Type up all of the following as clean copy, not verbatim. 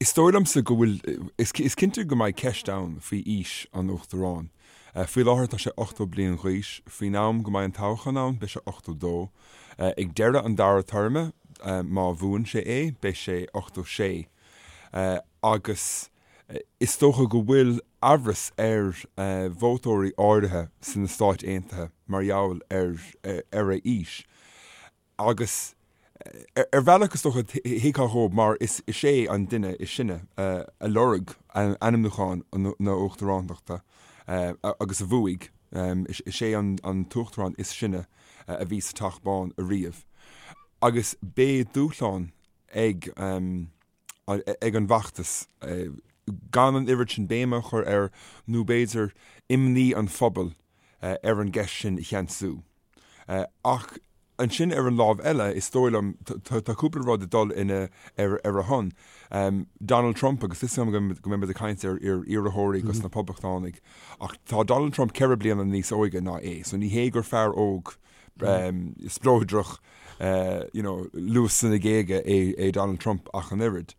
Is dóigh liomsa go bhfuil, is cinnte go mbeidh ceist ann faoi aois an Uachtaráin. Faoi láthair tá sé 80 bliain d'aois, faoin am go mbeidh an toghchán ann beidh sé 82. Ag deireadh an dara téarma, má bhuann sé é, beidh sé 86. Agus is dócha go bhfuil amhras ar vótóirí áirithe sna Stáit Aontaithe mar gheall ar a aois. Agus ar bhealach is dócha thuigfeá dhóibh mar is é an duine is sine a lorg ainmniúchán na huachtarántachta agus a bhuaigh. Is é an t-uachtarán is sine a bhí sa Teach Bán ariamh. Agus beidh dúshlán ag ag an bhfeachtas gan an oiread sin béime a chur air nó b'fhéidir imní an phobail ar an gceist sin a cheansú. Ach ansin ar an lámh eile, is dóigh liom, tá cúpla rud ag dul ina ar a shon. Donald Trump, agus is go mbeidh muid ag caint ar iarrthóirí dos na Poblachtánaigh, ach tá Donald Trump 4 bliana níos óige ná é, so ní hé gur fear óg spleodrach, you know, luas sna géaga é Donald Trump ach an oiread.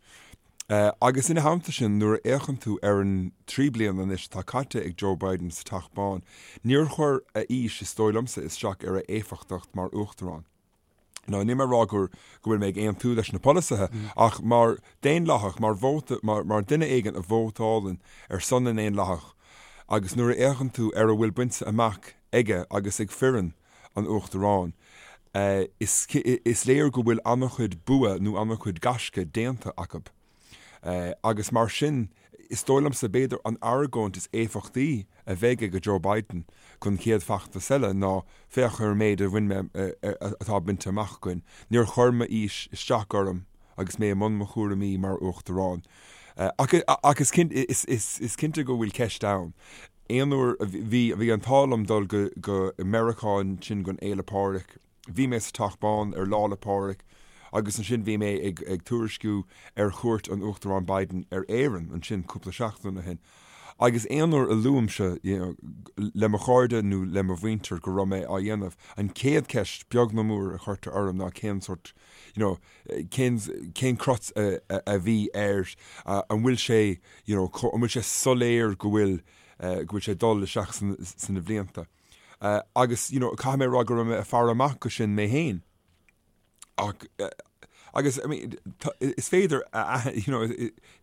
Agus ina theannta sin, nuair a fhéachann tú ar an 3 bliana anois atá caite ag Joe Biden sa Teach Bán, níor chuir a aois, is dóigh liomsa, isteach ar a éifeachtacht mar uachtarán. Now, níl mé ag rá go bhfuil mé ag aontú leis na polasaithe, ach mar daonlathach, mar vóta, mar duine éigin a vótálann ar son na nDaonlathach, agus nuair a fhéachann tú ar a bhfuil bainte amach aige agus ag foireann an Uachtaráin, is léir go bhfuil an-chuid bua nó an-chuid gaisce déanta acu. Agus mar sin, is dóigh liomsa, b'fhéidir an argóint is éifeachtaí a bheidh ag Joe Biden don chéad feachtas eile ná féach ar an méid a bhain mé, atá bainte amach againn. Níor chuir m'aois isteach orm agus mé i mbun mo chúraimí mar Uachtarán. Ach is cinnte go bhfuil ceist ann. Aon uair a bhí, bhí an t-ádh liom dul go, go Meiriceá ansin don Fhéile Pádraig. Bhí mé sa Teach Bán ar Lá 'le Pádraig agus ansin bhí mé ag, ag tuairisciú ar chuairt an Uachtaráin Biden ar Éirinn ansin cúpla seachtain ó shin. Agus aon uair a luaimse, you know, le mo chairde nó le mo mhuintir go raibh mé á dhéanamh, an chéad cheist, beag nó mór, a chuirtear orm ná cén sórt, you know, cén, cén crot a, a, a bhí air, an bhfuil sé, you know, an bhfuil sé soiléir go bhfuil, go bhfuil sé ag dul isteach sna blianta. Agus, you know, caithfidh mé a rá go raibh mé ag faire amach go sin mé féin. Ach, agus, I mean, is féidir a, you know,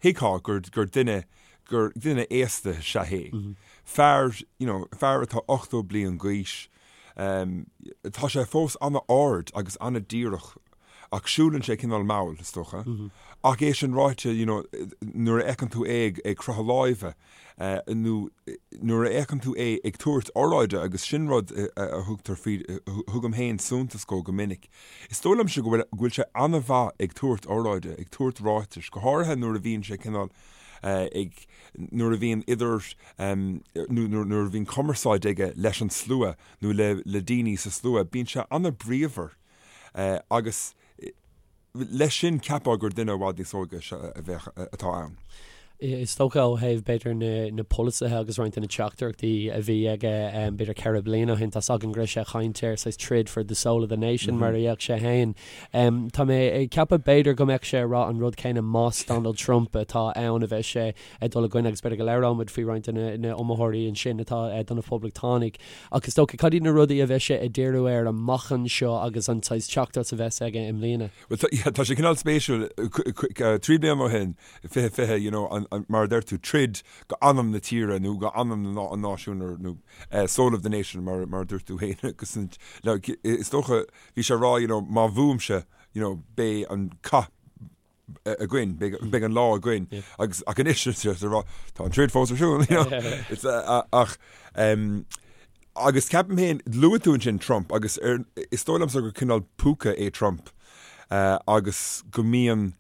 thuigfeá gur, gur duine, gur duine aosta is ea é. Fear, you know, fear atá 80 bliain d'aois, tá sé fós an-ard agus an-díreach Ach siúlann sé cineál mall, is dócha. Ach é sin ráite, you know, nuair a fheiceann tú é ag croitheadh láimhe, nó nuair a fheiceann tú é ag tabhairt oráide, agus sin rud a thugtar faoi, thugaim féin suntas dhó go minic, is dóigh liomsa go bhfuil, go bhfuil sé an-mhaith ag tabhairt oráide, ag tabhairt ráitis, go háirithe nuair a bhíonn sé cineál ag, nuair a bhíonn idir, nó nuair a bhíonn cumarsáid aige leis an slua nó le, le daoine sa slua, bíonn sé an-bhríomhar. Agus leis sin cheapfá gur duine i bhfad níos óige a bheadh, atá ann. Is dócha ó thaobh b'fhéidir na na polasaithe agus roinnt de na teachtaireachtaí a bhí aige b'fhéidir 4 bliana ó shin, tá's againn go raibh sé ag caint ar saghas troid for the soul of the nation mar a dhéarfadh sé féin. Tá mé ag ceapadh b'fhéidir go mbeadh sé ag rá an rud céanna más Donald Trump atá ann a bheadh sé ag dul i gcoinne agus b'fhéidir go labhróidh muid faoi roinnt de na iomaitheoirí ansin atá do na Poblachtánaigh. Ach is dócha, cad iad na rudaí a bheas sé ag díriú air amach anseo agus an saghas teachtaireacht a bheas aige i mbliana? Bhuel, tá, yeah, tá sé cineál spéisiúil, 3 bliana ó shin, 2020, you know, an, an, mar a deir tú, troid go anam na tíre nó go anam na, an náisiúin or, nó eh, soul of the nation mar, mar a dúirt tú féin agus an, le, is dócha, bhí sé ag rá, you know, má bhuaimse, you know, beidh an cath againn, beidh an lá againn agus ach anois tá an troid fós ar siúl ach agus ceapaim féin luaigh tú ansin Trump agus ar, is dóigh liomsa gur cineál púca é Trump agus go mbíonn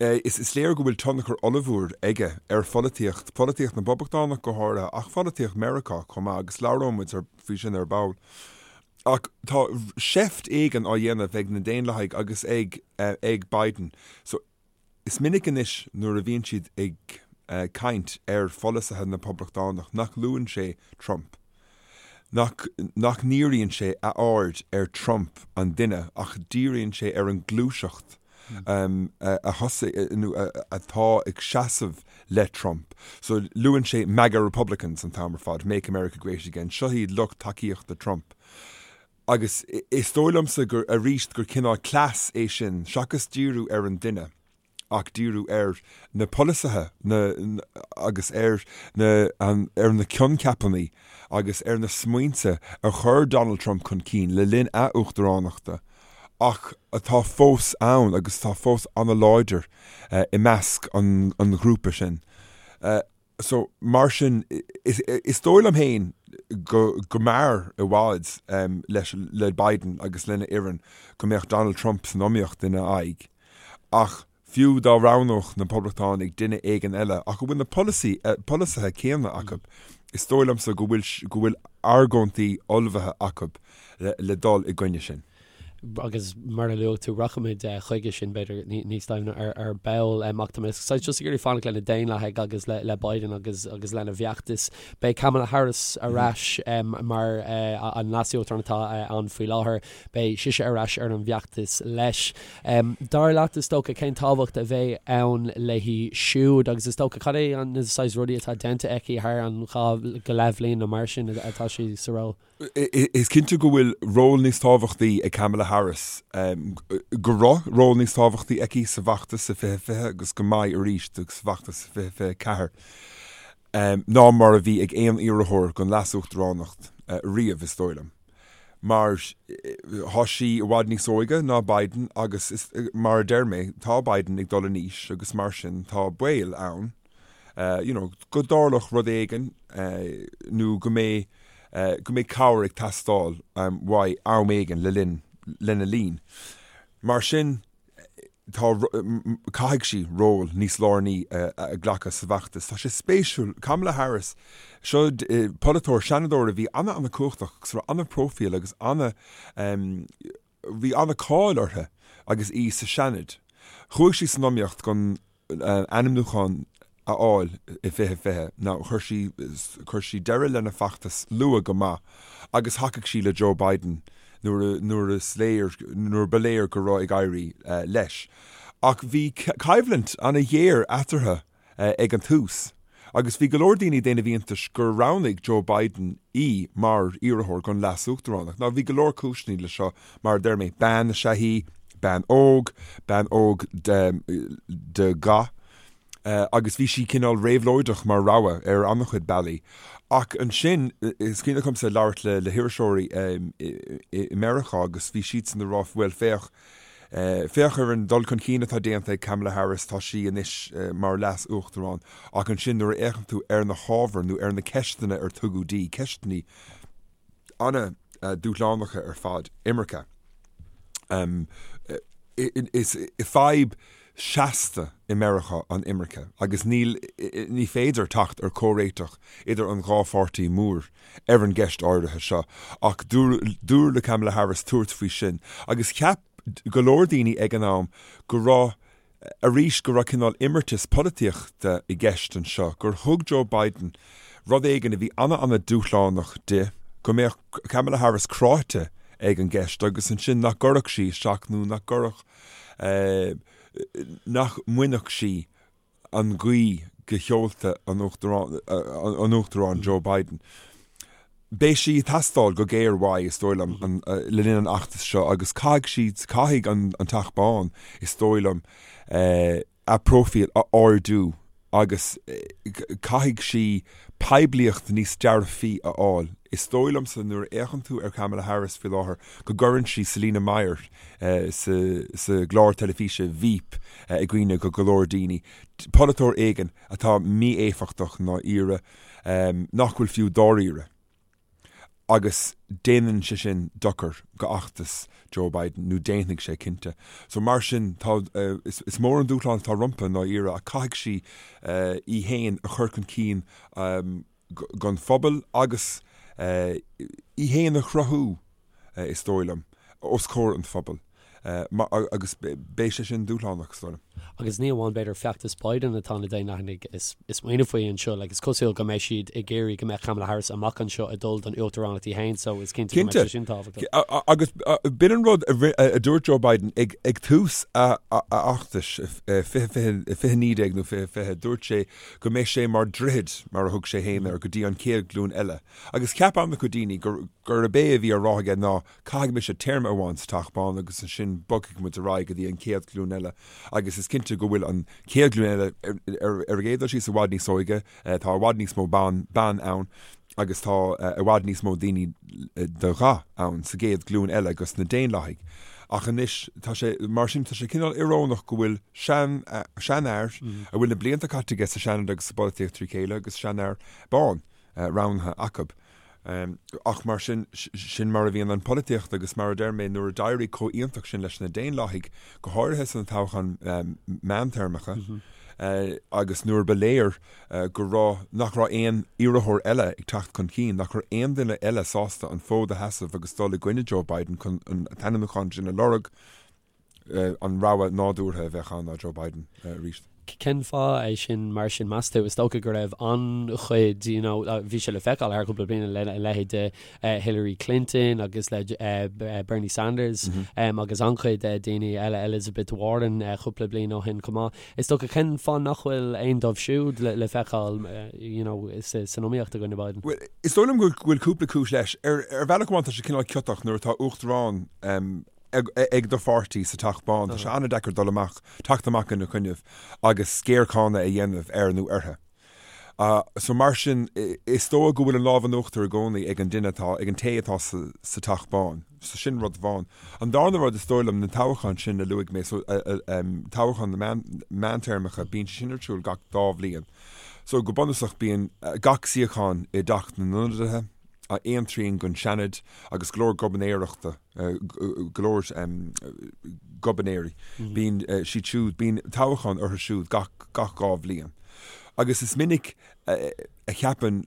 is, is léir go bhfuil tionchar ollmhór aige ar pholaitíocht, polaitíocht na bPoblachtánach go háirithe ach pholaitíocht Meiriceá chomh maith agus labhróidh muid faoi sin ar ball. Ach tá seift éigin á dhéanamh ag na Daonlathaigh agus ag ag Biden. So is minic anois nuair a bhíonn siad ag caint ar pholasaithe na bPoblachtánach nach luann sé Trump. Nach nach ndíríonn sé a aird ar Trump an duine ach díríonn sé ar an gluaiseacht. a thosaigh nó atá ag seasamh le Trump. So luann sé MAGA Republicans an t-am ar fad, Make America Great Again, seo iad lucht tacaíochta Trump. Agus is dóigh liomsa gur arís gur cineál cleas é sin seachas díriú ar an duine. ach díriú ar na polasaithe agus ar na ar na coincheapanna agus ar na smaointe a chuir Donald Trump chun cinn le linn a uachtaránachta ach atá fós ann agus atá fós an-láidir i measc an ghrúpa sin. So, mar sin, is dóigh liom féin go go mb'fhearr i bhfad leis le Biden agus lena fhoireann go mbeadh Donald Trump san iomaíocht ina aghaidh. Ach fiú dá roghnódh na Poblachtánaigh duine éigin eile ach a bhfuil na polasaí polasaithe céanna acu, is dóigh liomsa go bhfuil go bhfuil argóintí ullmhaithe acu le dul i gcoinne sin. agus mar a luaigh tú, rachaimid chuige sin, b'fhéidir, níos doimhne ar ball. Ach tá mé saghas just ag iarraidh fanacht le na Daonlathaigh agus le Biden agus agus lena bhfeachtas. Beidh Kamala Harris ar ais mar an leas-uachtarán atá ann faoi láthair. Beidh sise ar ais ar an bhfeachtas leis. Dar leat, is dócha, cén tábhacht a bheidh ann léi siúd agus is dócha, cad é na saghas rudaí atá déanta aici thar an dhá go leith bhliain nó mar sin atá sí sa ról? Is cinnte go bhfuil ról níos tábhachtaí ag Kamala Harris, go raibh ról níos tábhachtaí aici sa bhfeachtas i 2020 agus go mbeidh arís sa bhfeachtas i 2024, ná mar a bhí ag aon iarrthóir don leas-uachtaránacht riamh, is dóigh liom. Mar tá sí i bhfad níos óige ná Biden agus, mar a deir mé, tá Biden ag dul in aois agus mar sin tá baol ann you know, go dtarlódh rud éigin nó go mbeidh, go mbeidh cabhair ag teastáil uaidh am éigin le linn, lena linn. Mar sin, tá, caithfidh sí ról níos lárnaí a ghlacadh sa bhfeachtas. Tá sé spéisiúil, Kamala Harris, seo polaiteoir, seanadóir a bhí ana-ana-cumhachtach agus a raibh ana-phróifíl agus ana, bhí ana-cáil uirthi agus í sa Seanad. Chuaigh sí san iomaíocht don ainmniúchán a fháil i 2020. Now, chuir sí, chuir sí deireadh lena feachtas luath go maith agus thacaigh sí le Joe Biden nuair a, nuair is léir, nuair ba léir go raibh ag éirí leis. Ach bhí coimhlint ana-ghéar eatarthu ag an tús, agus bhí go leor daoine ag déanamh iontais gur roghnaigh Joe Biden í mar iarrthóir don leas-uachtaránacht. Now bhí go leor cúiseanna le seo, mar a deir mé, bean is ea í, bean óg, bean óg de dhath, agus bhí sí cineál réabhlóideach mar rogha ar an-chuid bealaí. Ach ansin, is cuimhin liomsa labhairt le hiriseoirí i Meiriceá agus bhí siadsan ag rá, bhuel féach, Féach ar an dul chun cinn atá déanta ag Kamala Harris, tá sí anois mar leas-uachtarán, ach ansin nuair a fhéachann tú ar na hábhair nó ar na ceisteanna ar tugadh di, ceisteanna an-dúshlánacha ar fad, imirce, is fadhb seasta i Meiriceá an imirce agus níl, ní féidir teacht ar chomhréiteach idir an dhá pháirtí mór ar an gceist áirithe seo ach dúradh le Kamala Harris tabhairt faoi sin agus cheap go leor daoine ag an am go raibh, arís, go raibh cineál imeartas polaitíochta i gceist anseo, gur thug Joe Biden rud éigin a bhí ana-ana-dúshlánach di, go mbeadh Kamala Harris cráite ag an gceist agus ansin nach gcuirfeadh sí isteach nó nach gcuirfeadh, nach mbainfeadh sí an ghaoth de sheolta an Uachtaráin Joe Biden. Beidh sí ag teastáil go géar uaidh, is dóigh liom, le linn an fheachtais seo agus caithfidh sí, caithfidh an Teach Bán, is dóigh liom, a próifíl a ardú agus caithfidh sí poiblíocht níos dearfaí a fháil. Is dóigh liomsa nuair a fhéachann tú ar Kamala Harris faoi láthair go gcuireann sí Selina Meyer sa gclár teilifíse Veep i gcuimhne go go leor daoine, polaiteoir éigin atá mí-éifeachtach i ndáiríre, nach bhfuil fiú dáiríre. Agus déanann sé sin dochar go fheachtas Joe Biden, nó déanfaidh sé cinnte. So mar sin, tá, is mór an dúshlán atá rompu i ndáiríre ach caithfidh sí í féin a chur chun cinn don phobal agus í féin a chruthú, is dóigh liom, os comhair an phobail. Agus beidh sé sin dúshlánach, is dóigh liom. Agus ní amháin, b'fhéidir, feachtas Biden atá na Daonlathaigh ag smaoineamh faoi anseo. Like, is cosúil go mbeidh siad ag iarraidh go mbeadh Kamala Harris amach anseo ag dul don uachtaránacht í féin, so is cinnte go mbeidh sé sin tábhachtach. Cinnte. Agus b'in an rud a dúirt Joe Biden ag tús a fheachtais, 2019 nó 2020, dúirt sé go mbeidh sé mar droichead, mar a thug sé féin air, go dtí an chéad ghlúin eile. Agus cheap an-chuid daoine gurb é a bhí á rá aige ná Caithfidh mise téarma amháin sa Teach Bán agus ansin bogfaidh muid ar aghaidh go dtí an chéad ghlúin eile agus is cinnte go bhfuil an chéad ghlúin eile ar an gcéad dul síos i bhfad níos óige, tá i bhfad níos mó ban ban ann agus tá i bhfad níos mó daoine de dhath ann sa gcéad ghlúin eile agus na Daonlathaigh. Ach anois tá sé mar sin tá sé cineál íorónach go bhfuil sean seanfhear a bhfuil na blianta caite aige sa Seanad agus sa bpolaitíocht trí chéile agus seanfhear bán roghnaithe acu. Ach mar sin, sin mar a bhíonn an pholaitíocht agus mar a deir mé, nuair a d'éirigh chomh hiontach sin leis na Daonlathaigh, go háirithe sna toghcháin meántéarmacha, agus nuair ba léir go raibh, nach raibh aon iarrthóir eile ag teacht chun cinn, nach raibh aon duine eile sásta an fód a sheasamh agus dul i gcoinne Joe Biden chun an t-ainmniúchán sin a lorg, an rogha nádúrtha a bheadh ann ná Joe Biden arís. Cén fáth é sin mar sin, meas tú? Is dócha go raibh an-chuid, you know, bhí sé le feiceáil thar cúpla bliain le a leithéid de Hillary Clinton agus le Bernie Sanders agus an-chuid daoine eile, Elizabeth Warren cúpla bliain ó shin chomh maith. Is dócha cén fáth nach bhfuil aon dóibh siúd le feiceáil, you know, san iomaíocht i gcoinne Biden? Bhuel, is dóigh liom go bhfuil cúpla cúis leis. Ar bhealach amháin tá sé cineál ciotach nuair atá uachtarán ag do pháirtí sa Teach Bán, tá sé an-deacair dul amach, teacht amach ina choinnibh agus géarcháineadh a dhéanamh air nó uirthi. So mar sin, is dóigh go bhfuil an lámh in uachtar i gcónaí ag an duine atá, ag an té atá sa Teach Bán. So sin rud amháin. An darna rud, is dóigh liom, na toghcháin sin a luaigh mé, so toghcháin na meántéarmacha, bíonn sé sin ar siúl gach dá bhliain. So go bunúsach bíonn gach suíochán i dTeach na nIonadaithe, aon trian den Seanad agus go leor gobharnóireachta, go leor gobharnóirí, bíonn siad siúd, bíonn toghchán orthu siúd gach gach 2 bhliain. Agus is minic a cheapann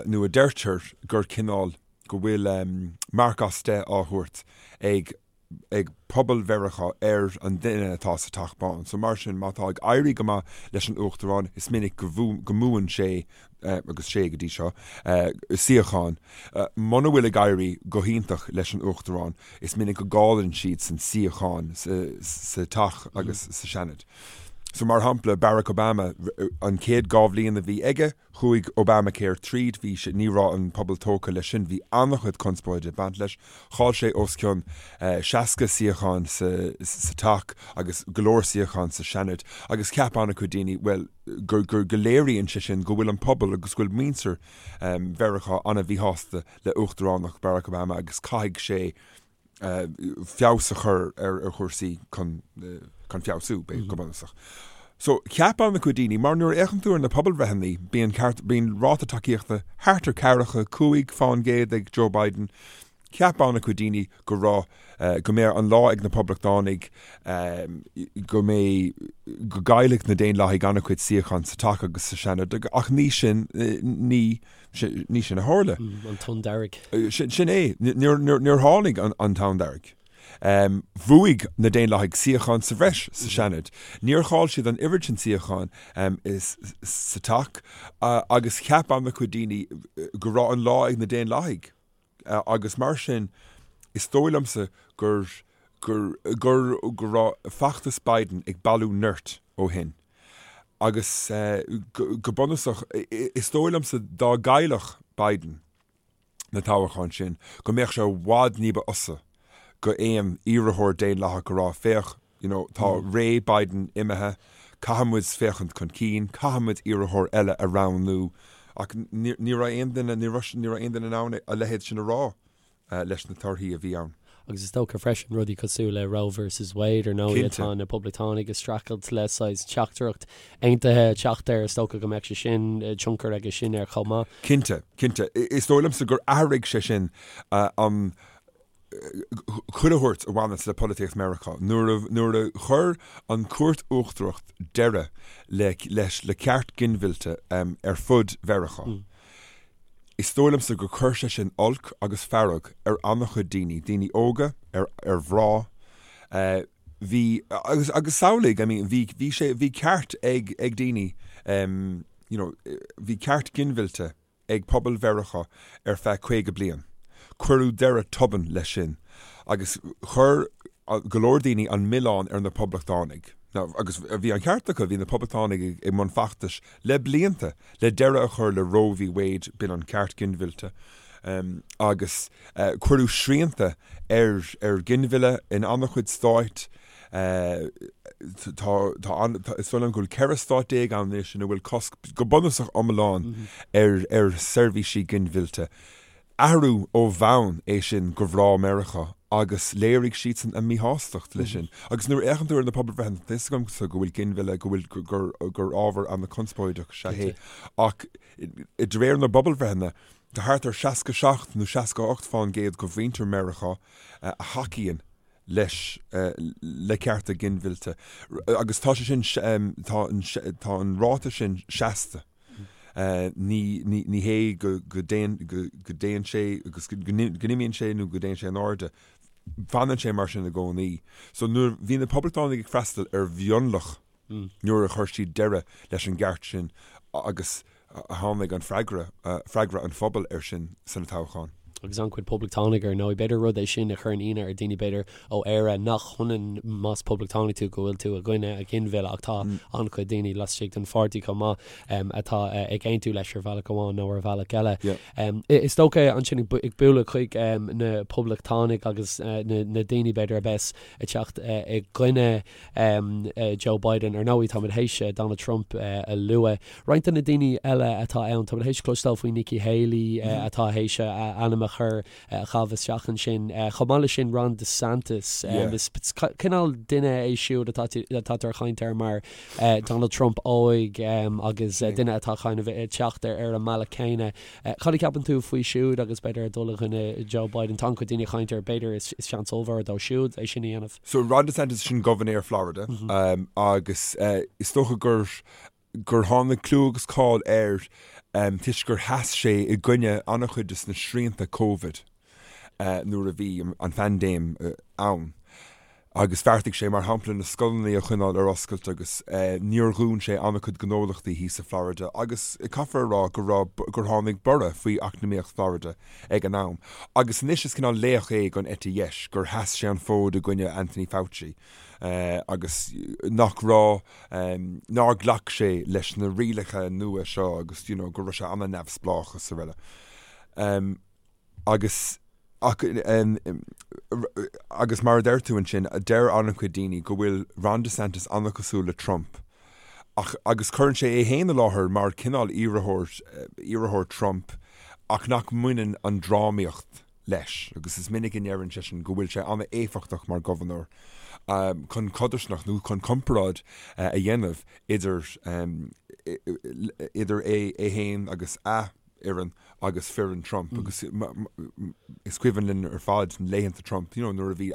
nó a deirtear gur cineál, go bhfuil marc as 10 á thabhairt ag ag pobal Mheiriceá ar an duine atá sa Teach Bán. So mar sin, má tá ag éirí go maith leis an Uachtarán, is minic go mbuann sé, agus sé go dtí seo, suíochán. Muna bhfuil ag éirí go hiontach leis an Uachtarán, is minic go gcailleann siadsan suíocháin sa Teach agus sa Seanad. So mar shampla, Barack Obama, an chéad 2 bhliain a bhí aige, Chuaigh Obamacare tríd, bhí sé, ní raibh an pobal tógtha leis sin, bhí an-chuid conspóide ag baint leis. Chaill sé os cionn 60 suíochán sa Teach agus go leor suíochán sa Seanad agus cheap an-chuid daoine, bhuel, go, go, go léiríonn sé sin go bhfuil an pobal agus go bhfuil muintir Mheiriceá an-mhíshásta le uachtaránacht Barack Obama agus caithfidh sé feabhas a chur ar chúrsaí chun feabhsú, go bunúsach. So, cheap an-chuid daoine, mar nuair a fhéachann tú ar na pobalbhreitheanna, bíonn ceart, bíonn ráta tacaíochta thart ar ceathracha 5% ag Joe Biden, cheap an-chuid daoine go raibh, go mbeadh an lá ag na Poblachtánaigh, go mbeidh, go gcaillfeadh na Daonlathaigh an-chuid suíochán sa Teach agus sa Seanad, ach ní sin, ní. Ní sin a tharla. An tonn dearg. Sin é. Níor tháinig an tonn dearg. Bhuaigh na Daonlathaigh suíochán sa bhreis sa Seanad. Níor chaill siad an oiread sin suíochán sa Teach agus cheap an-chuid daoine go raibh an lá ag na Daonlathaigh agus mar sin is dóigh liomsa gur gur gur go raibh feachtas Biden ag bailiú nirt ó shin. Agus go bunúsach, is dóigh liomsa dá gcaillfeadh Biden na toghcháin sin, go mbeadh sé i bhfad ní ba fhusa go aon iarrthóir Daonlathach a rá, féach, you know, tá ré Biden imithe, caithfidh muid féachaint chun cinn, caithfidh muid iarrthóir eile a roghnú. Ach ní raibh aon duine, ní raibh aon duine in ann a leithéid sin a rá. leis na torthaí a bhí ann. Agus is dócha freisin rudaí cosúil le Roe versus Wade ar ndóigh atá na Poblachtánaigh ag streachailt le saghas teachtaireacht aontaithe teacht air, is dócha go mbeadh sé sin, tionchar aige sin air chomh maith. Cinnte, cinnte. Is dóigh liomsa gur athraigh sé sin an chuile shórt a bhaineas le polaitíocht Meiriceá. Nuair a, nuair a chuir an Chúirt Uachtarach deireadh le, leis, le ceart ginmhillte ar fud Mheiriceá. Is dóigh liomsa gur chuir sé sin olc agus fearg ar an-chuid daoine, daoine óga, ar, ar mhná. Bhí, agus, agus samhlaigh, I mean, bhí, bhí sé, bhí ceart ag, ag daoine, you know, bhí ceart ginmhillte ag pobal Mheiriceá ar feadh 50 bliain. Cuireadh deireadh tobann leis sin agus chuir go leor daoine an milleán ar na Poblachtánaigh. Now, agus bhí an ceart acu, bhí na Poblachtánaigh i mbun feachtais le blianta le deireadh a chur le Roe v. Wade, b'in an ceart ginmhillte, agus cuireadh srianta ar ar ghinmhilleadh in an-chuid stáit. Tá, tá an, is dóigh liom go bhfuil 14 stát ann anois ina bhfuil cosc go bunúsach iomlán ar ar seirbhísí ginmhillte. Athrú ó bhonn é sin do mhná Meiriceá agus léirigh siadsan a míshástacht leis sin. Agus nuair a fhéachann tú ar na pobalbhreitheanna, tá a fhios agamsa go bhfuil ginmhilleadh, go bhfuil, gur, gur ábhar an-chonspóideach is ea é ach de réir na bpobalbhreitheanna, tá thart ar 67 nó 68 fán gcéad de mhuintir Meiriceá a thacaíonn leis, le cearta ginmhillte agus tá sé sin, tá an, tá an ráta sin seasta. Ní, ní, ní hé go, go dtéann, go, go dtéann sé agus go, go n-imíonn sé nó go dtéann sé in airde. Fanann sé mar sin i gcónaí. So nuair bhí na Poblachtánaigh ag freastal ar mhionlach nuair a chuir siad deireadh leis an gceart sin agus tháinig an freagra, freagra an phobail air sin sna toghcháin. Agus an-chuid Poblachtánaigh ar ndóigh. B'fhéidir rud é sin a chuireann ionadh ar dhaoine b'fhéidir ó Éire nach hionann más Poblachtánach tú go bhfuil tú i gcoinne an ghinmhilleadh ach tá an-chuid daoine laistigh den pháirtí chomh maith atá ag aontú leis ar bhealach amháin nó ar bhealach eile. Is dócha ansin ag bualadh chuig na Poblachtánaigh agus na daoine b'fhéidir a bheas ag teacht i gcoinne Joe Biden. Ar ndóigh, táimid théis Donald Trump a lua. Roinnt de na daoine eile atá ann, táimid théis cloisteáil faoi Nikki Haley atá théis a ainm a chur, a chaitheamh isteach ansin. Chomh maith leis sin, Ron DeSantis. Is cineál duine é siúd atá atáthar ag caint air mar Donald Trump óg agus duine atá kind of ag teacht ar an mbealach céanna. Cad a cheapann tú faoi siúd agus b'fhéidir ag dul i gcoinne Joe Biden? Tá an-chuid daoine ag caint air, b'fhéidir is seans ollmhór dó siúd é sin a dhéanamh. So Ron DeSantis sin gobharnóir Florida agus is dócha gur gur tháinig clú agus cáil air toisc gur sheas sé i gcoinne an-chuid de na srianta Covid nuair a bhí an phaindéim ann. Agus bheartaigh sé, mar shampla, na scoileanna a choinneáil ar oscailt agus níor dhún sé an-chuid gnólachtaí thíos i Florida agus caithfear a rá go raibh, gur tháinig borradh faoi eacnamaíocht Florida ag an am. Agus anois is cineál laoch é don eite dheis gur sheas sé an fód i gcoinne Anthony Fauci agus nach raibh, nár ghlac sé leis na rialacha nua seo agus you know go raibh sé an-neamhspleách is araile. Agus, ach, agus mar a deir tú ansin, deir an-chuid daoine go bhfuil Ron DeSantis an-chosúil le Trump, ach, agus cuireann sé é féin i láthair mar cineál iarrthóir, iarrthóir Trump, ach nach mbaineann an drámaíocht leis. Agus is minic a ndeireann seisean go bhfuil sé an-éifeachtach mar ghobharnóir chun codarsnacht nó chun comparáid a dhéanamh idir, idir é féin agus a fhoireann agus foireann Trump agus is cuimhin linn ar fad laethanta Trump, you know, nuair a bhí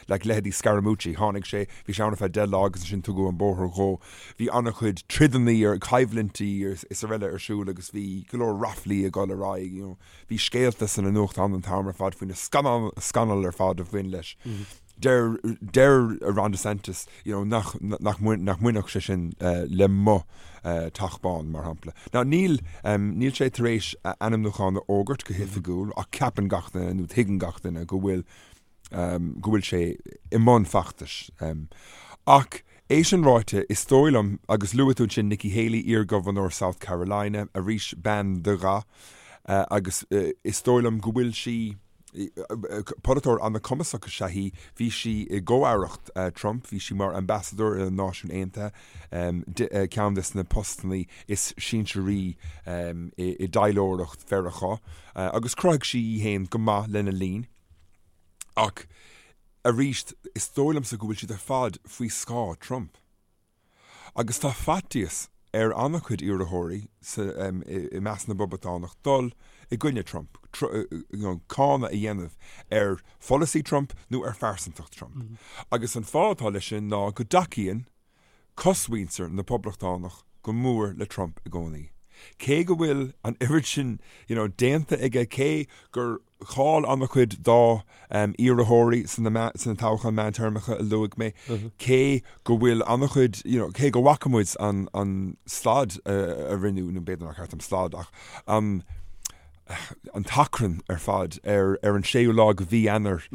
like leithéidí Scaramucci, tháinig sé, bhí sé ann ar feadh 10 lá agus ansin tugadh an bóthar dhó. Bhí an-chuid troideanna ar coimhlintí is araile ar siúl agus bhí go leor raflaí ag dul ar aghaidh, you know. Bhí scéalta sna nuachtáin an t-am ar fad faoi na scannail ar fad a bhain leis. Deir deir Ron DeSantis you know nach nach nach mbainfeadh sé sin le mo Teach Bán, mar shampla. Now níl níl sé tar éis a ainmniúchán a fhógairt go hoifigiúil ach ceapann gach duine nó tuigeann gach duine go bhfuil go bhfuil sé i mbun feachtais. Ach é sin ráite, is dóigh liom, agus luaigh tú ansin Nikki Haley, iar-ghobharnóir South Carolina, arís bean de dhath, agus is dóigh liom go bhfuil sí, Polaiteoir an-chumasach is ea í. Bhí sí i gcomh-aireacht Trump, bhí sí mar ambasadóir ar na Náisiúin Aontaithe, ceann de na postanna is sinsearaí i dtaidhleoireacht Mheiriceá, agus chruthaigh sí í féin go maith lena linn. Ach arís, is dóigh liomsa go bhfuil siad ar fad faoi scáth Trump. Agus tá faitíos ar an-chuid iarrthóirí i measc na bPoblachtánach dul i gcoinne Trump, cáineadh a dhéanamh ar pholasaí Trump nó ar phearsantacht Trump. Agus an fáth atá leis sin ná go dtacaíonn cosmhuintir na bPoblachtánach go mór le Trump i gcónaí. Cé go bhfuil an oiread sin déanta aige, cé gur. Chaill an-chuid dá iarrthóirí sna toghcháin meántéarmacha a luaigh mé, cé go bhfuil an-chuid, you know, cé go bhfaca muid an slad a rinneadh, nó b'fhéidir nár cheart dom slad ach an an t-achrann ar fad ar ar an séú lá de mhí Eanáir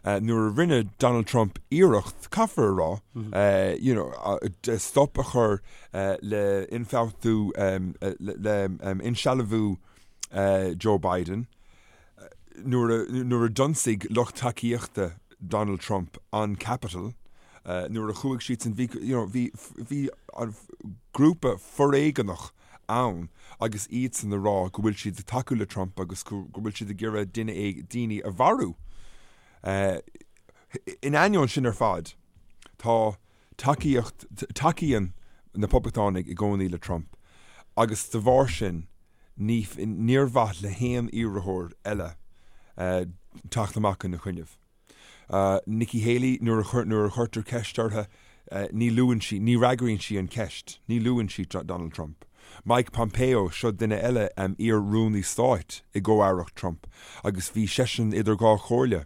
nuair a rinne Donald Trump iarracht, caithfear a rá, you know, stop a chur le ionfhabhtú, le insealbhú Joe Biden nuair a d'ionsaigh lucht tacaíochta Donald Trump an Capitol, nuair a chuaigh siadsan, bhí, you know, bhí, bhí an grúpa foréigeanach ann agus iadsan ag rá go bhfuil siad ag tacú le Trump agus go bhfuil siad ag iarraidh duine, daoine a mharú. In ainneoin sin ar fad, tá tacaíocht, tacaíonn na Poblachtánaigh i gcónaí le Trump agus de bharr sin, ní, níor mhaith le haon iarrthóir eile teacht amach ina choinnibh. Nikki Haley, nuair a, nuair a chuirtear ceist uirthi, ní luann sí, ní fhreagraíonn sí an cheist, ní luann sí Donald Trump. Mike Pompeo, seo duine eile, iar-rúnaí stáit i gcomh-aireacht Trump, agus bhí seisean idir dhá chomhairle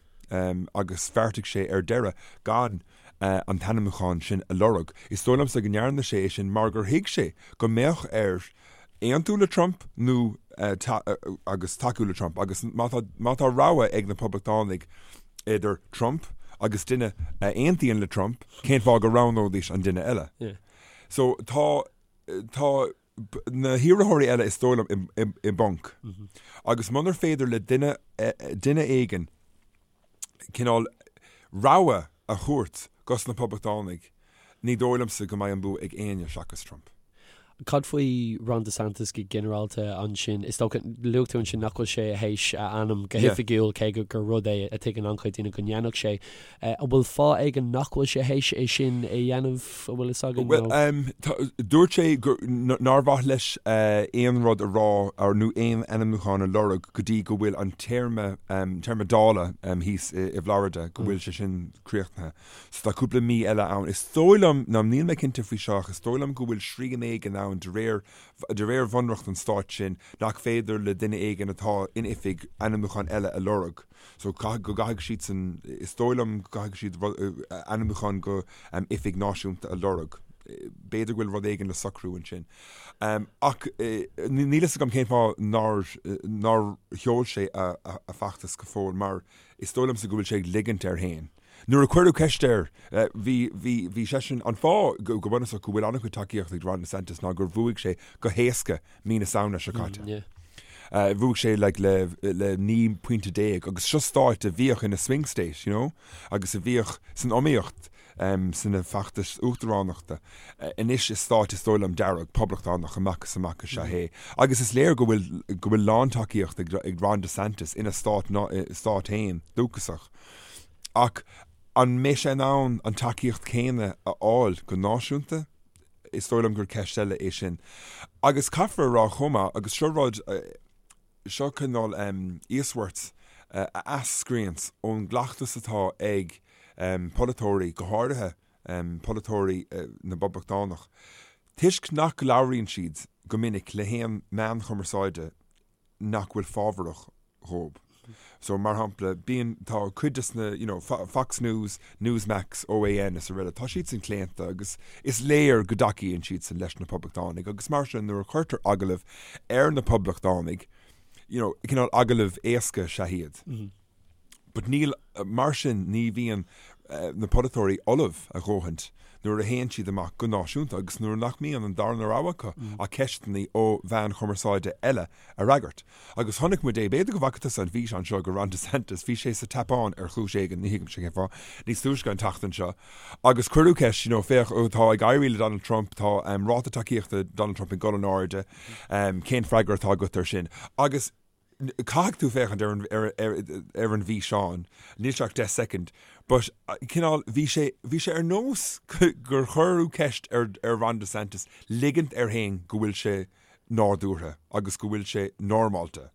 agus bheartaigh sé ar deireadh gan an t-ainmniúchán sin a lorg. Is dóigh liomsa go ndearna sé é sin mar gur thuig sé go mbeadh air aontú le Trump nó agus tacú le Trump agus má tá má tá rogha ag na Poblachtánaigh idir Trump agus duine a aontaíonn le Trump, cén fáth go roghnóidís an duine eile? So tá tá na hiarrthóirí eile is dóigh liom i bponc agus munar féidir le duine duine éigin cineál rogha a thabhairt dos na Poblachtánaigh, ní dóigh liomsa go mbeidh an bua ag éinne seachas Trump. Cad faoi Ron DeSantis go ginearálta ansin? Is dócha, luaigh tú ansin nach bhfuil sé théis a ainm go hoifigiúil, cé gur rud é a tuigeann an-chuid daoine go ndéanfadh sé. An bhfuil fáth éigin nach bhfuil sé théis é sin a dhéanamh, an bhfuil fhios againn? Bhuel, dúirt sé nár mhaith leis aon rud a rá nó aon ainmniúchán a lorg go dtí go bhfuil an téarma, téarma Dála thíos i bhFlorida, go bhfuil sé sin críochnaithe. So tá cúpla mí eile ann. Is dóigh liom, ná níl mé cinnte faoi seo ach is dóigh liom go bhfuil srian éigin ann de réir, de réir bhunreacht an stáit sin nach féidir le duine éigin atá in oifig ainmniúchán eile a lorg. So caithfidh, go gcaithfidh siadsan, is dóigh liom go gcaithfidh siad ainmniúchán go oifig náisiúnta a lorg. B'fhéidir go bhfuil rud éigin le socrú ansin. Ach níl fhios agam cén fáth nár, nár sheol sé a, a feachtas go fóill mar is dóigh liomsa go bhfuil sé ag ligint air féin. Nuair a cuireadh ceist air, bhí, bhí, bhí seisean, an fáth go, go bunúsach go bhfuil an-chuid tacaíocht ag Ron DeSantis ná gur bhuaigh sé go héasca mí na Samhna seo caite. Mm, yeah. Bhuaigh sé like, le, le 19 pointe agus seo stáit a bhíodh ina swing state, you know, agus a bhíodh san iomaíocht um, sna feachtais uachtaránachta. Anois is stáit is dóigh liom dearg, poblachtánach amach is amach is ea é. Agus is léir go bhfuil, go bhfuil lántacaíocht ag, ag Ron DeSantis ina stát, stát féin dúchasach. Ach an mbeidh sé in ann an tacaíocht chéanna a fháil go náisiúnta? Is dóigh liom gur ceist eile é sin. Agus caithfear a rá chomh maith, agus seo rud, seo cineál íosmhairt a eascraíonns ón gcleachtas atá ag polaiteoirí, go háirithe polaiteoirí na bPoblachtánach, toisc nach labhraíonn siad go minic le haon meán chumarsáide nach bhfuil fábharach dhóib. So, mar shampla, bíonn, tá cuid des na, you know, Fox News, Newsmax, OAN is araile, tá siadsan claonta agus is léir go dtacaíonn siadsan leis na Poblachtánaigh agus mar sin nuair a chuirtear agallamh ar na Poblachtánaigh, you know, cineál agallamh éasca is ea iad. But níl, mar sin ní bhíonn na polaiteoirí ullamh a dhóthaint nuair a théann siad amach go náisiúnta agus nuair nach mbíonn an darna rogha acu ach ceisteanna ó mheáin chumarsáide eile a fhreagairt. Agus chonaic muid é, b'fhéidir go bhfaca tusa an físeán seo de Ron DeSantis, bhí sé sa tSeapáin ar chúis éigin, ní thuigimse cén fáth, níos túisce an tseachtain seo agus cuireadh ceist, you know, féach, tá ag éirí le Donald Trump, tá ráta tacaíochta Donald Trump ag dul in airde, cén freagra atá agat air sin? Agus Caithfidh tú féachaint ar an, ar, ar, ar an bhfíseán, níl sé ach 10 soicind, but cineál, bhí sé, bhí sé ar nós gur cuireadh ceist ar, ar Ron DeSantis ligint air féin go bhfuil sé nádúrtha agus go bhfuil sé normálta.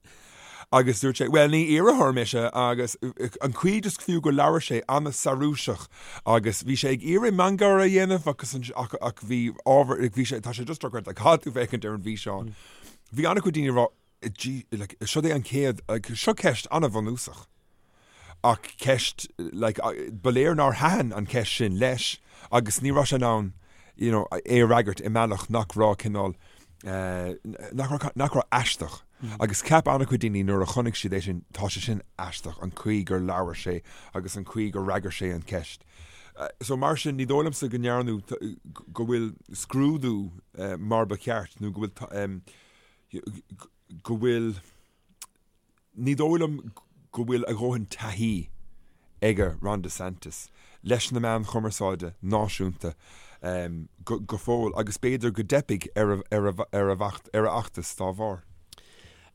Agus dúirt sé, well ní iarrthóir mise agus an chaoi just fiú go labhair sé an-searúiseach agus bhí sé ag iarraidh miongháire a dhéanamh agus an, ach, ach bhí ábhar, bhí sé, tá sé just dochreidte, caithfidh tú féachaint ar an bhfíseán. Bhí an-chuid daoine ag rá. Like, seo é an chéad, like, seo ceist an-bhunúsach. Ach ceist, like, ba léir nár thaitin an cheist sin leis agus ní raibh sé in ann, you know, é a fhreagairt i mbealach nach raibh cineál, nach raibh, nach raibh aisteach. Agus cheap an-chuid daoine nuair a chonaic siad é sin, tá sé sin aisteach, an chaoi gur labhair sé agus an chaoi gur fhreagair sé an cheist. So mar sin, ní dóigh liomsa go ndearnadh, go bhfuil scrúdú mar ba cheart nó go bhfuil, go bhfuil, ní dóigh liom go bhfuil a dhóthain taithí aige Ron DeSantis leis na meáin chumarsáide náisiúnta go fóill agus b'fhéidir go dteipfidh ar a fheachtas dá bharr.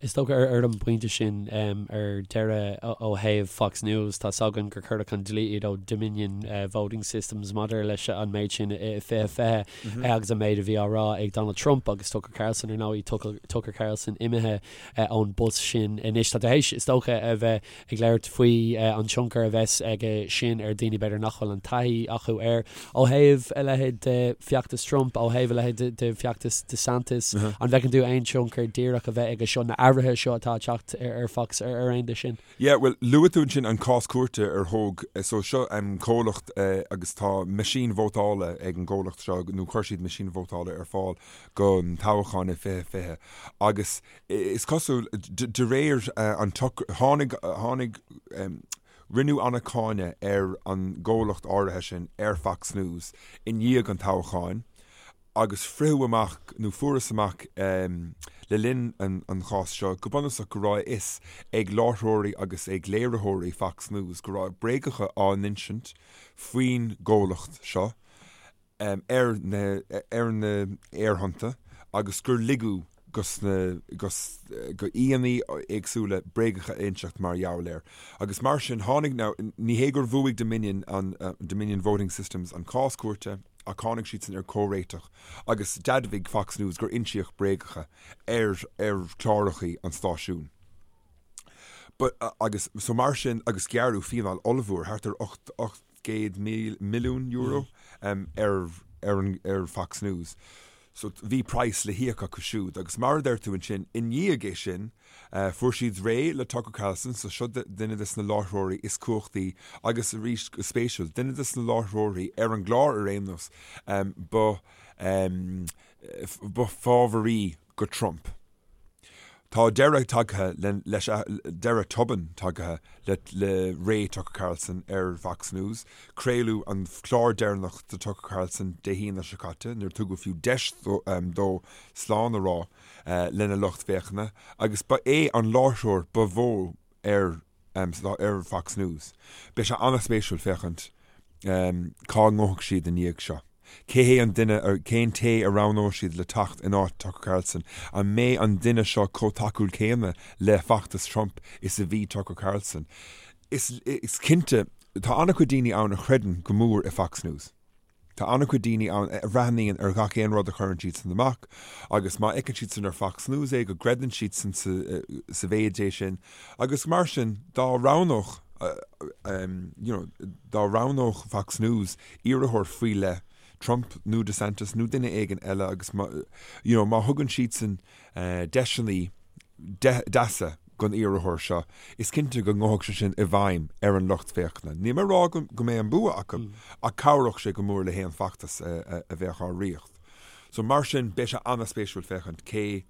Is dócha ar an bpointe sin ar deireadh ó thaobh Fox News, tá 's againn gur cuireadh chun dlí iad ó Dominion Voting Systems maidir leis an méid sin i 2020 agus an méid a bhí á rá ag Donald Trump agus Tucker Carlson, ar ndóigh, Tucker Carlson imithe ón bpost sin anois. Tá tú théis, is dócha, a bheith ag labhairt faoi an tionchar a bheas aige sin ar dhaoine b'fhéidir nach bhfuil an taithí acu air. Ó thaobh a leithéid de feachtas Trump, ó thaobh a leithéid de feachtas DeSantis, an bhfeiceann tú aon tionchar díreach a bheith aige seo, na athruithe seo atá ag teacht ar Fox ar aon de sin? Yeah, bhuel, luaigh tú ansin an cás cúirte ar thóg, so seo comhlacht agus tá meaisín vótála ag an gcomhlacht seo, nó chuir siad meaisín vótála ar fáil don toghchán i 2020 agus is cosúil, de réir an tháinig, tháinig, rinneadh an-cháineadh ar an gcomhlacht áirithe sin ar Fox News i ndiaidh an toghcháin agus fritheadh amach, nó fuarthas amach le linn an chás seo go bunúsach go raibh a fhios ag láithreoirí agus ag léiritheoirí Fox News go raibh bréagacha á n-insint faoin gcomhlacht seo. ar na ar na aerthonnta agus gur ligeadh dos na dos go aíonna éagsúla bréagacha a inseacht mar gheall air. Agus mar sin tháinig now ní hé gur bhuaigh Dominion an Dominion Voting Systems an cás cúirte ach tháinig siadsan ar comhréiteach agus d'admhaigh Fox News gur insíodh bréagacha ar ar chlárachaí an stáisiúin. But agus so mar sin agus gearradh fíneáil ollmhór thart ar 8 €800 milliún ar ar Fox News. So bhí praghas le híoc acu siúd. Agus mar a deir tú ansin, i ndiaidh é sin, fuair siad réidh le Tucker Carlson, so seo duine des na láithreoirí is cumhachtaí agus arís go spéisiúil, duine des na láithreoirí ar an gclár ar aon nós ba ba fábharaí go Trump. Tá deireadh tagtha leis, deireadh tobann tagtha le le ré Tucker Carlson ar Fox News. Craoladh an clár deireanach de Tucker Carlson Dé hAoine seo caite, níor tugadh fiú deis dó slán a rá lena lucht féachana, agus ba é an láithreoir ba mhó ar ar Fox News. Beidh sé an-spéisiúil féachaint cá ngabhfaidh siad i ndiaidh seo. Cé hé an duine, cén té a roghnóidh siad le teacht in áit Tucker Carlson? An mbeidh an duine seo chomh tacúil céanna le feachtas Trump is a bhí Tucker Carlson? Is cinnte, tá an-chuid daoine ann a chreideann go mór i Fox News. Tá an-chuid daoine ann a bhreathnaíonn ar gach aon rud a chuireann siadsan amach agus má fheiceann siadsan ar Fox News é go gcreideann siadsan sa mhéid é sin agus mar sin dá roghnódh you know dá roghnódh Fox News iarrthóir faoi leith, Trump nó DeSantis nó duine éigin eile agus má you know má thugann siadsan deiseanna deasa don iarrthóir seo, is cinnte go ngabhfadh sé sin i bhfeidhm ar an lucht féachana. Níl mé ag rá go mbeidh an bua acu, ach cabhródh sé go mór le haon feachtas a bheadh á rith. So mar sin, beidh sé an-spéisiúil féachaint cé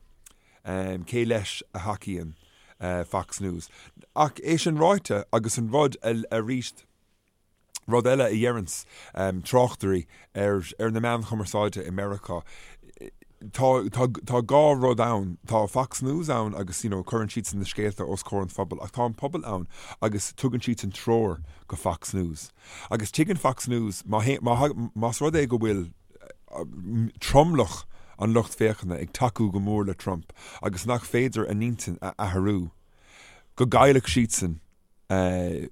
cé leis a thacaíonn Fox News. Ach é sin ráite, agus an rud arís, Rud eile a dheireanns tráchtairí ar ar na meáin chumarsáide i Meiriceá, tá tá tá dhá rud ann, tá Fox News ann agus you know cuireann siadsan na scéalta os comhair an phobail ach tá an pobal ann agus tugann siadsan treoir go Fox News. Agus tuigeann Fox News má má más rud é go bhfuil tromlach an lucht féachana ag tacú go mór le Trump agus nach féidir a n-intinn a athrú, go gcaillfeadh siadsan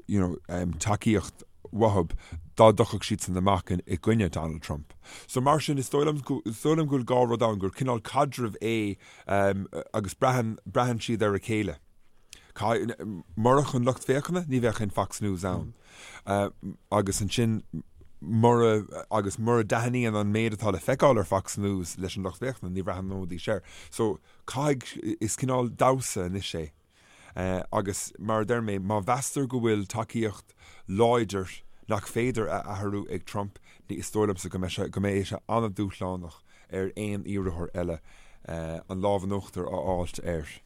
you know, tacaíocht uathub dá dtiocfadh siadsan amach i gcoinne Donald Trump. So mar sin, is dóigh liom, is dóigh liom go bhfuil dhá rud ann, gur cineál caidreamh é agus braitheann, braitheann siad ar a chéile. Murach an lucht féachana, ní bheadh aon Fox News ann. Agus ansin, Mura, agus mura dtaitníonn an méid atá le feiceáil ar Fox News leis an lucht féachana, ní bhreathnóidís air. So, caithfidh, is cineál damhsa anois é. Agus mar a deir mé, má mheastar go bhfuil tacaíocht láidir nach féidir a athrú ag Trump, ní, is dóigh liomsa go mbeidh sé, go mbeidh sé an-dúshlánach ar aon iarrthóir eile an lámh in uachtar a fháilt air.